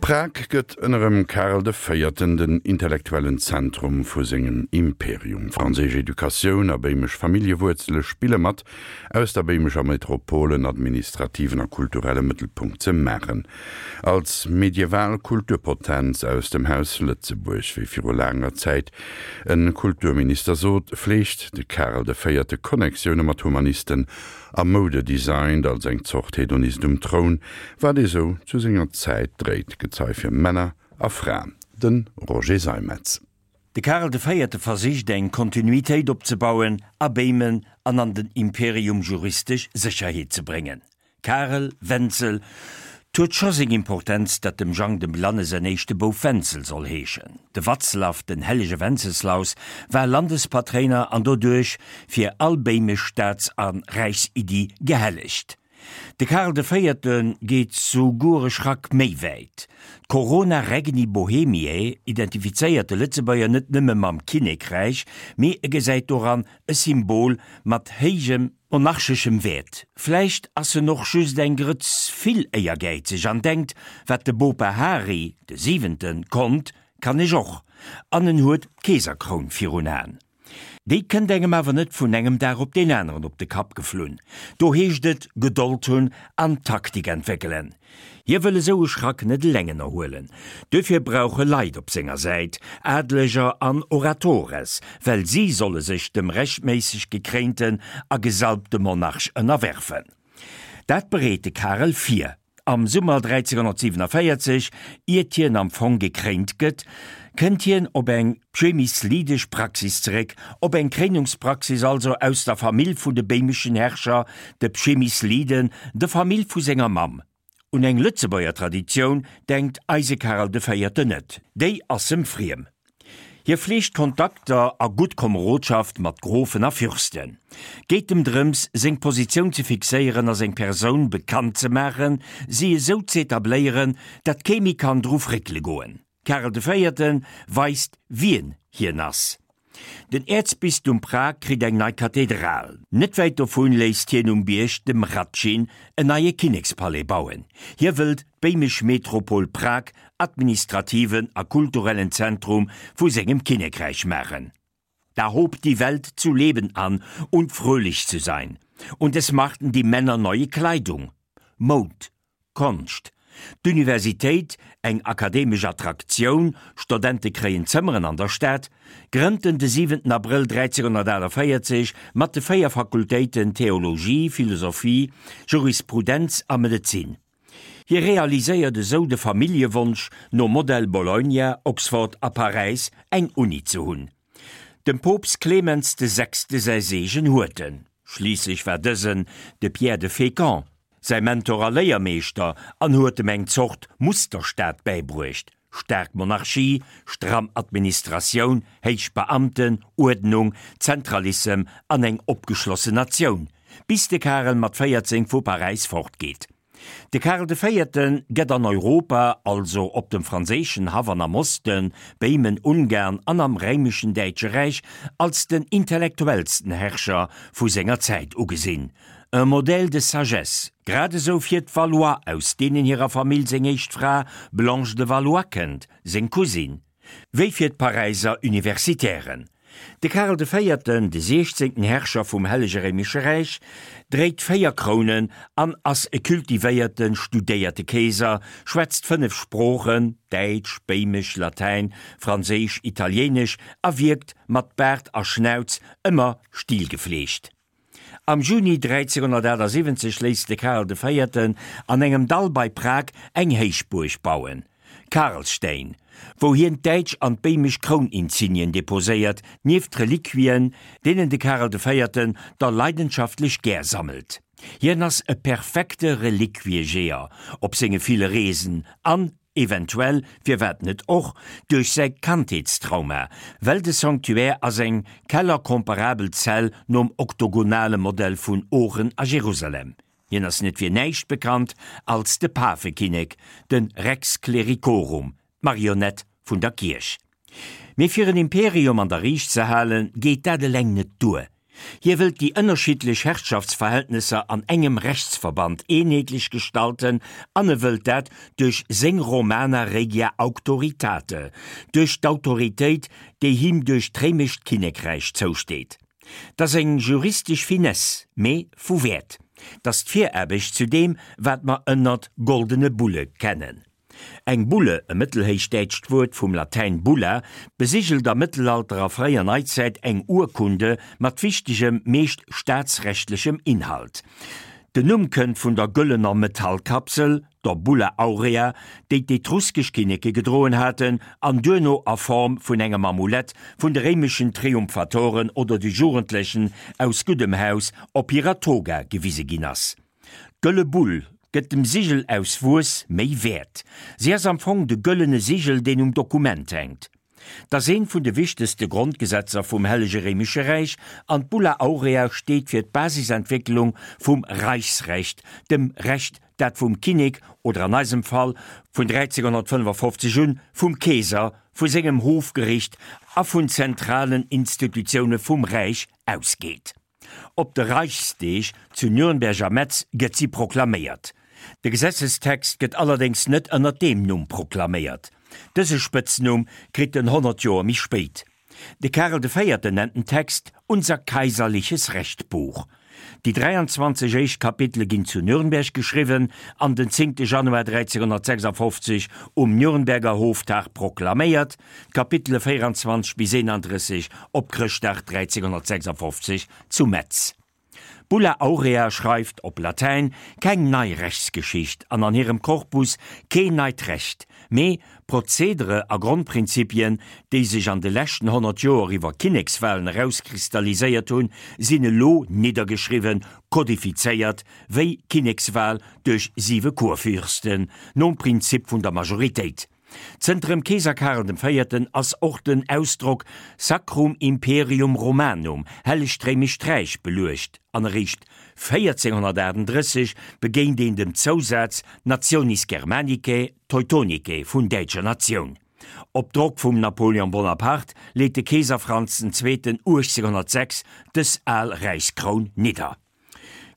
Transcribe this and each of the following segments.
Prag gëtt ënnerem Karel de Véierten den intellektuellen Zentrum vu sengem Imperium. Franséisch Educatioun a béimesch Familljewuerzele spille mat, aus der béimescher Metropol en administrativen a kulturelle Mëttelpunkt ze maachen. Als medieval Kulturpotenz aus dem Haus Lëtzebuerg, wéi viru laanger Zäit e Kulturminister sot, fleegt de Karel de Véierte Connectioune mat Humanisten a Moude designt als eng Zort Hedonist um Troun, wat ee sou zu senger Zäit dréit, Gezei fir Männer a Fraen. De Roger Seimetz. De Karel de Véierte versicht eng Kontinuitéit opzebauen a Béimen an an den Imperium juristesch Sécherheet ze bréngen. Karel, Wenzel, 't huet scho seng Importenz, datt dem Jang dem Blanne säin éischte Bouf Wenzel soll heeschen. De Watzlaw, den hellege Wenzeslaus, war Landespatréiner an doduerch fir all béimesch Staats a Räichsiddi gehellegt. De Karel de Véierte geet souguer e Schrack méi wäit. D'Corona Regni Bohemiae identifizéiert de Lëtzebuerger net nëmme mam Kinnekräich, mee e gesäit doran e Symbol mat héijem monarcheschem Wäert. Vläicht ass en och just eng Grëtz vill éiergäizeg an denkt, wat de Bopa Hari, de Siwenten, konnt, kann ech och, an en huet d'Keeserkroun virun Aen. Déi kënnt engem awer net vun engem Dag op deen aneren op de Kapp geflunn. Do heescht et Gedold hunn an Taktik entwéckelen. Hie wëll esou e Schrack net eleng ënnerhuelen. Duerfir brauch e Leit op senger Säit, Adleger an Oratores, well si solle sech dem rechtméisseg gekréinten a gesalbte Monarch ënnerwerfen. Dat bereet de Karel vir. Am Summer 1347, iert hien am Fong gekréint gëtt, kënnt hien op eng pschemyslidesch Praxis zeréck, op eng Kréinungspraxis also aus der Famill vun de béimeschen Herrscher, de Pschemysliden, der Famill vu senger Mamm. Un eng Lëtzebuerger Traditioun denkt eise Karel de Véierten net, déi ass em friem. Hie fleegt Kontakter a gutt Komerodschaft mat Grofen a Fürsten. Geet em drëms, seng Positioun ze fixéieren a seng Persoun bekannt ze maachen, si esou z'etabléieren, dat kee méi kann dru fréckele goen. Karel de Véierte weist wien hien ass. Den Äerzbistum Prag kritt eng nei Kathedral. Net wäit dovun léisst hien um Bierg dem Hradschin en neie Kinnekspalais bauen. Hie wëllt d'béimesch Metropol Prag administrativen a kulturellen Zentrum vu sengem Kinnekräich maachen. Da hob die Welt zu leben an und fröhlich zu sein, und es machten die Männer neue Kleidung. Moud, Konscht, D'Universitéit, eng akademesch Attraktioun, Stodente kréien Zëmmeren an der Stad, grënnt en de 7 Abrëll 1348 mat de 4 Fakultéiten Theologie, Philosophie, Jurisprudenz a Medezin. Hie realiséiert esou de Familljewonsch, nom Modell Bologna, Oxford a Paräis eng Uni ze hunn. Dem Poopst Clemens de Sechste säi Seegen huet en, schliisslech war dësen de Pierre de Fécamp säi Mentor a Léiermeeschter an huet em eng Zort Musterstaat bäibruecht, staark Monarchie, stramm Administratioun, héich Beamten, Uerdnung, Zentralissem an eng opgeschlossen Natioun, bis de Karel mat 14 vu Paräis fortgeet. De Karel de Véierte gëtt an Europa, also op dem franséischen Haff an am Osten, Béimen, Ungarn an am Réimeschen Däitsche Räich, als den intellektuellsten Herrscher vu senger Zäit ugesinn, un modèle de sagesse, grad esou fir d'Valois, aus deenen hirer Famill seng éischt Fra Blanche de Valois kënnt, seng Cousine, wéi fir d'Paräiser Universitären. De Karel de Véierten, de siechzéngten Herrscher vum Hellege Réimesche Räich, dréit 4 Krounen an ass e kultivéierten, studéierte Keeser, schwätzt 5 Sproochen, Däitsch, Béimesch, Latäin, Franséisch, Italiéinesch, a wierkt mat Baart a Schnauz ëmmer stilgefleegt. Am Juni 1378 léisst de Karel de Véierten an engem Dall bei Prag eng Héichbuerg bauen, Karlštejn, wou hien d'däitsch an d'béimesch Krouninsignien deposéiert, nieft Reliquien, deenen de Karel de Véierten der leidenschaftlech gär sammelt. Hien ass e perfekte Reliquiejeeër op senge ville Reesen an Eventuell, firwat net och, duerch säi Kandheetstrauma, well de Sanctuaire ass eng kellercomparabel Zell nom oktogonale Modell vun Oochen a Jerusalem. Hien ass net fir näischt bekannt als de Pafekinnek, de Rex Clericorum, d'Marionett vun der Kierch. Mee fir en Imperium an der Riicht ze halen, geet dat eleng net duer. Hie wëllt déi ënnerschiddlech Herrschaftsverhältnesser an engem Rechtsverband eenheetlech gestalten an e wëllt dat duerch seng Romana Regia Auctoritate, duerch d'Autoritéit, déi him duerch d'réimescht Kinnekräich zousteet. 't ass eng juristesch Finesse, mee vu Wäert. 't ass d'Viraarbecht zu deem, wat mer ënnert Goldene Bulle kennen. Eng Bulle, e mëttelhéichdäitscht Wuert vum Latäin bulla, besigelt am Mëttelalter a fréier Neizäit eng Urkunde mat wichtegem, meescht staatsrechtlechem Inhalt. Den Numm kënnt vun der gëllener Metallkapsel, der Bulla aurea, déi d'etruskesch Kinneke gedroen haten an duerno a Form vun engem Amulett vun de réimeschen Triumphatoren oder de Jugendlechen aus guddem Haus op hirer Toga gewise ginn ass. D'gëlle Bull gëtt dem Sigel aus Wuess méi Wäert. Si ass am Fong de gëllene Sigel, deen um Dokument hänkt. 't ass eent vun de wichtegste Grondgesetzer vum Hellege Réimesche Räich an d'Bulla Aurea steet fir d'Basisentwécklung vum Reichsrecht, dem Recht, dat vum Kinnek oder an eisem Fall vun 1355 un vum Keeser, vu sengem Hofgericht a vun zentralen Institutioune vum Räich ausgeet. Op de Reichsdeeg zu Nürnberg a Metz gëtt si proklaméiert. De Gesetzestext gëtt allerdéngs net ënner deem Numm proklaméiert. Dëse Spëtznumm kritt en 100 Joer méi spéit. De Karel de Véierten nennt den Text Unser kaiserliches Rechtbuch. Déi 23 éischt Kapitele ginn zu Nürnberg geschriwwen an den 10 Januar 1356 um Nürnberger Hoftag proklaméiert, D'Kapitele 24 bis 31 op Chrëschtdag 1356 zu Metz. D'Bulla Aurea schreift op Latäin keng nei Rechtsgeschicht an an hirem Korpus keen neit Recht, mee Prozedere a Grondprinzipien, déi sech an de leschten 100 Joer iwwer Kinnekswalen erauskristalliséiert hunn, sinn elo niddergeschriwwen, kodifizéiert, wéi Kinnekswal duerch siwe Kurfürsten, nom Prinzip vun der Majoritéit. Zënter dem Keeser Karel dem Véierten ass och den Ausdrock Sacrum Imperium Romanum, Hellegt Réimescht Räich, beluecht an eréischt 1438 begéint een dem Zousaz Nationis Germanicae Teutonicae, vun däitscher Natioun. Op Drock vum Napoleon Bonaparte leet de Keeser Franz den Zweeten 1806 dës al Räichskroun nidder.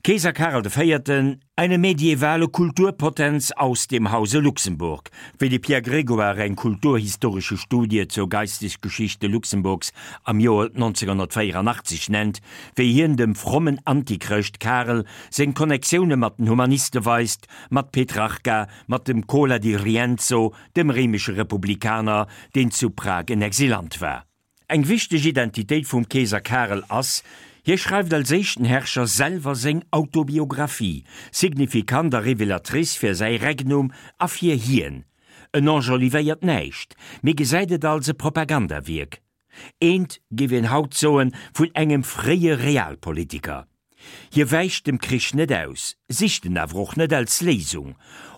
Keeser Karel de Véierten, eine medievale Kulturpotenz aus dem Hause Luxemburg, wéi de Pierre Grégoire eng kulturhistorische Studie zur Geistesgeschichte Luxemburgs am Joer 1984 nennt, wéi hien dem frommen Antichrëscht Karel seng Connectioune mat den Humaniste weist, mat Petrarca, mat dem Cola di Rienzo, dem réimesche Republikaner, deen zu Prag en Exilant war. Eng wichteg Identitéit vum Keeser Karel ass, hie schreift als éischten Herrscher selwer seng Autobiographie, signifikant a révélatrice fir säi Regnum a fir hien. En enjolivéiert näischt, mee gesäit et als e Propagandawierk. Eent, géif een haut soen, vun engem fréie Realpolitiker. Hie wäicht dem Krich net aus, sicht en awer och net als Léisung.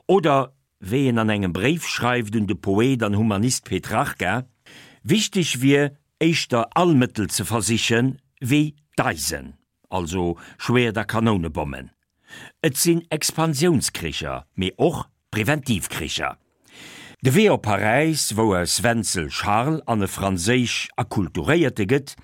Oder wéi en an engem Bréif schreift un de Poet an Humanist Petrarca, wichteg wier éischter all Mëttel ze versichen, wéi d'Eisen, also Schwäert a Kanounebommen. Et sinn Expansiounskricher, mee och Preventivkricher. De Wee op Paräis, wou aus Wenzel Charles an e franséisch Akkulturéierte gëtt,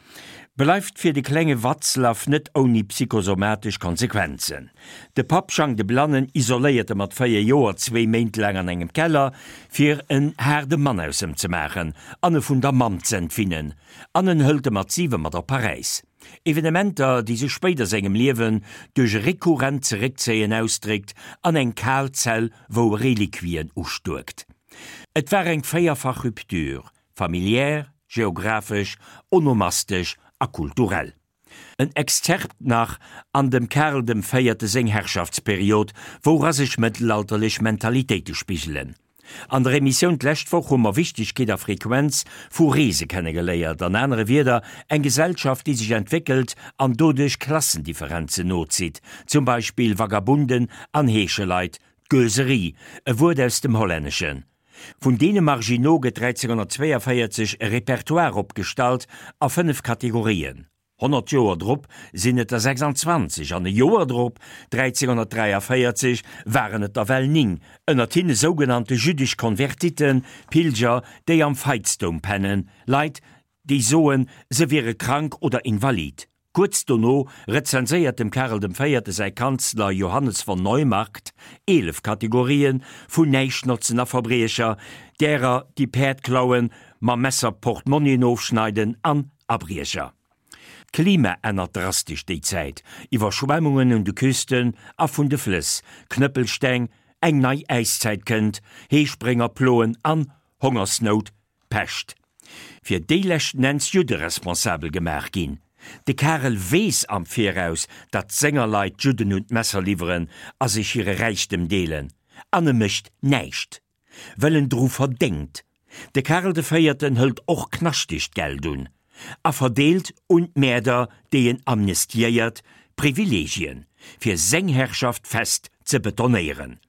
bleift fir de klenge Václav net ouni psychosomatesch Konsequenzen. De Papp Jang de Blannen isoléiert e mat 4 Joer zwéi Méint laang an engem Keller, fir en haarde Mann aus em ze maachen an e vun der Mamm z'entwinnen, an en hëlt e mat 7 mat op Paräis. Evenementer, déi sech spéider sengem Liewen duerch e rekurrent Zeréckzéien ausdréckt an eng kal Zell, wou e Reliquien ustuerkt. Et war eng véierfach Rupture, familiär, geographesch, onomastesch a kulturell. En Exzerpt nach an dem Karl dem Véierte seng Herrschaftsperiod, woura sech mëttelalterlech Mentalitéite spigelen. An der Emissioun d'lescht Woch hu mer Wichtegkeet a Frequenz vu Reese kennegeléiert, an anere Wierder, eng Gesellschaft déi sech entwéckelt an doduerch Klassendifferenzen nozitt, zum Beispill Vagabunden an Heescheleit, d'Gueuserie, e Wuert aus dem Hollänneschen. Vun deene Marginaux gëtt 1342 e Repertoire opgestallt a 5 Kategorien. 100 Joer drop sinn et der 26 an e Joer drop, 1343, waren et der well 9, ënnert hinne sougenannte jüddesch Konvertiten, Pilger, déi am Veitsdoum pennen, Leit, déi soen, se wiere krank oder invalid. Kuerz dono rezenséiert dem Karel dem Véierte säi Kanzler Johannes von Neumarkt 11 Kategorië vun Näischtnotzen a Verbriecher, därer déi Päerd klauen, mam Messer Portmonnien ofschneiden an Abriecher. D'Klima ännert drastesch déi Zäit, Iwwerschwemmungen un de Küsten a vun de Flëss, Knëppelsteng, eng nei Äiszäit kënnt, Heesprénger ploen an Hongersnout, Pescht. Fir déi leschten Enns Judde responsabel gemaach ginn. De Karel weess am Viraus, datt senger Leit d'Judden un d'Messer liwweren a sech hire Räichtem deelen, an e mécht näischt, well en dru verdéngt. De Karel de Véierten hëlt och knaschtegt Geld un a verdeelt un d'Mäerder, déi en amnestiéiert, Privilegien, fir seng Herrschaft fest ze betonéieren.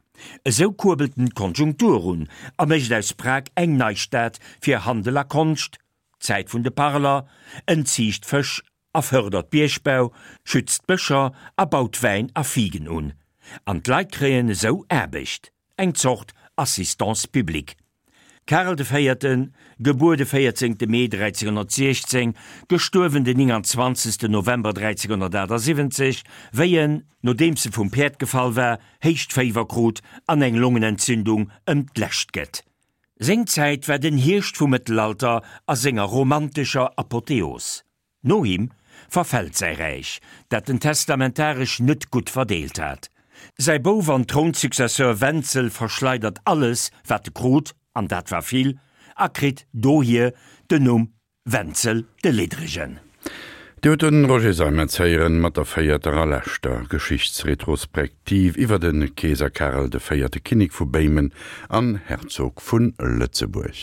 Esou kuerbelt en d'Konjunktur un a mécht aus Prag eng nei Stad fir Handel a Konscht, d'Zäit vun de Parler, en ziicht Fësch a fërdert Biergbau, schützt d'Bëscher a baut Wäin a Figen un. An d'Leit kréien esou Aarbecht, eng Zort Assistance publique. Karel de Véierten, gebuer de 14. Mee 1316, gestuerwen den 29. November 1378, wéi en, nodeems e vum Päerd gefall war, héicht Féiwer krut an eng Longenentzündung ëm d'Lescht gëtt. Seng Zäit war den Hierscht vum Mëttelalter a senger romantescher Apotheos. No him verfält säi Räich, dat en testamentaresch net gutt verdeelt hat. Säi Bouf an Trounsuccesseur Wenzel verschleidert alles, wat e krut, an dat war vill, a kritt dohier den Numm Wenzel de Liddregen. Dir hutt de Roger Seimetz héieren mat der véierter a leschter Geschichtsretrospektiv iwwer de Keeser Karel de Véierte, Kinnek vu Béimen an Herzog vu Lëtzebuerg.